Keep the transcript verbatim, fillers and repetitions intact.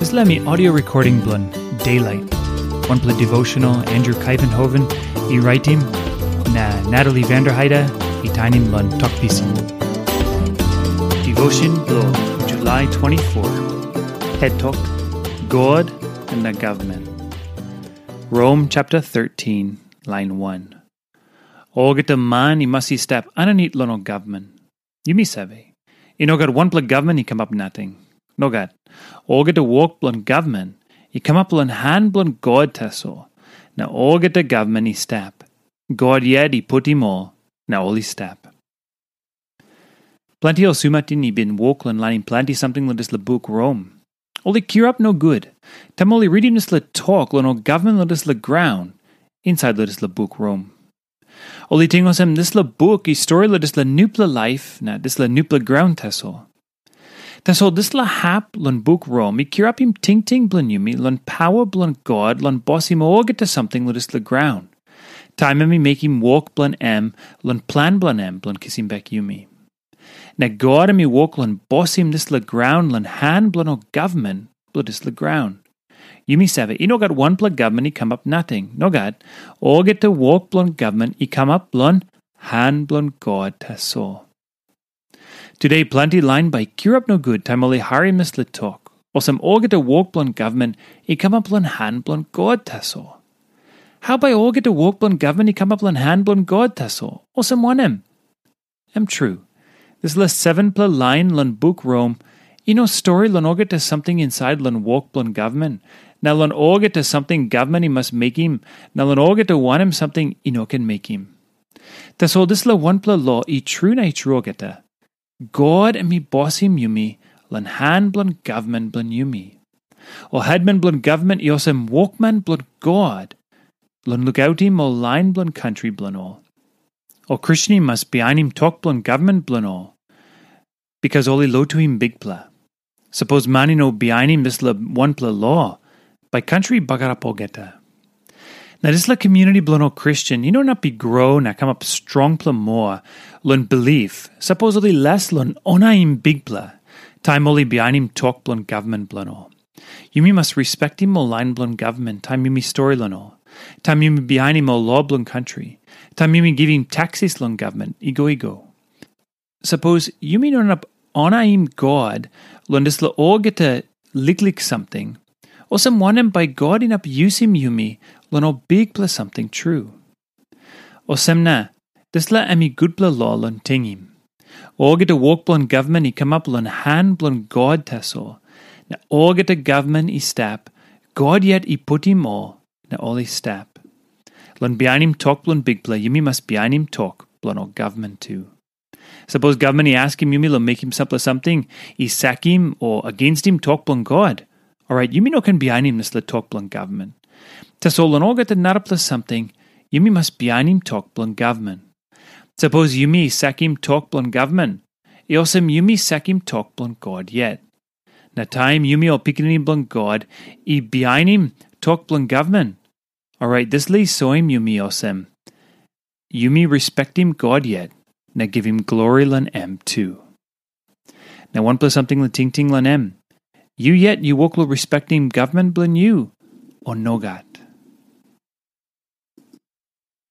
Dispela mi audio recording bilong Daylight. Wanpela devotional Andrew Kaivenhoven i raitim, na Natalie Vanderheide i tainim long Tok Pisin. Devotion bilong July twenty-four. Het tok, God na Government. Rom chapter thirteen, line one. Olgeta man i mas i stap aninit long ol gavman. Yumi save, i no gat wanpela gavman i kamap nating. Nogat. Olgeta wok bilong gavman i kamap long han bilong God tasol, na olgeta gavman i stap. God yet i putim ol, na ol i stap. Planti ol sumatin i bin wok long lainim planti samting long dispela buk Rom. Ol i kirap nogut, taim ol i ritim dispela tok long ol gavman long dispela graun, insait long dispela buk Rom. Ol i ting olsem dispela buk i stori long dispela nupela laip na dispela nupela graun tasol. Tasol dispela hap long buk Rom i kirapim tingting bilong yumi long pawa bilong God long bosim olgeta samting long dispela graun, taim em i mekim wok bilong em long plan bilong em bilong kisim bek yumi. Na God em i wok long bosim dispela graun long han bilong ol gavman bilong dispela graun. Yumi save, i no gat wanpela gavman i kamap nating. Nogat, olgeta wok bilong gavman i kamap long han bilong God tasol. Tude planti lain bai i kirap nogut taim ol i harim dispela tok, olsem olgeta wok bilong gavman i kamap long han bilong God tasol. Hau bai olgeta wok bilong gavman i kamap long han bilong God tasol? Olsem wanem? Em tru, dispela sevenpela lain long buk Rom i no stori long olgeta samting insait long wok bilong gavman, na long olgeta samting gavman i mas mekim, na long olgeta wanem samting i no ken mekim. Tasol dispela wanpela lo i tru na i tru olgeta. God em i bosim yumi long han bilong gavman bilong yumi. Ol hetman bilong gavman i olsem wokman bilong God long lukautim ol lain bilong kantri bilong ol. Ol Kristen i mas bihainim tok bilong gavman bilong ol, bikas ol i lotuim Bikpela. Sapos man i no bihainim dispela wanpela lo, bai kantri i bagarap olgeta. Na dispela community bilong ol Kristen i no inap i gro na kamap strongpela moa long bilip, sapos ol i les long onaim Bikpela, taim ol i bihainim tok bilong gavman bilong ol. Yumi mas respektim ol lain bilong gavman taim yumi stori long ol, taim yumi bihainim ol lo bilong kantri, taim yumi givim taksis long gavman i go i go. Sapos yumi no inap onaim God long dispela olgeta liklik samting, olsem wanem bai God inap yusim yumi long ol bikpela samting tru? Olsem na, dispela em i gutpela lo long tingim. Olgeta wok bilong gavman i kamap long han bilong God tasol, na olgeta gavman i stap, God yet i putim ol, na ol i stap. Long bihainim tok bilong Bikpela, yumi mas bihainim tok bilong ol gavman tu. Sapos gavman i askim yumi long mekim sampela samting i sakim o agenstim tok bilong God, orait yumi no ken bihainim dispela tok bilong gavman. Tasol long olgeta narapela samting, yumi mas bihainim tok bilong gavman. Sapos yumi sakim tok bilong gavman, i olsem yumi sakim tok bilong God yet. Na taim yumi ol pikinini bilong God i bihainim tok bilong gavman, orait dispela i soim yumi olsem, yumi respektim God yet na givim glori long em tu. Na wanpela samting long tingting long em, yu yet yu wok long respektim gavman bilong yu, o nogat?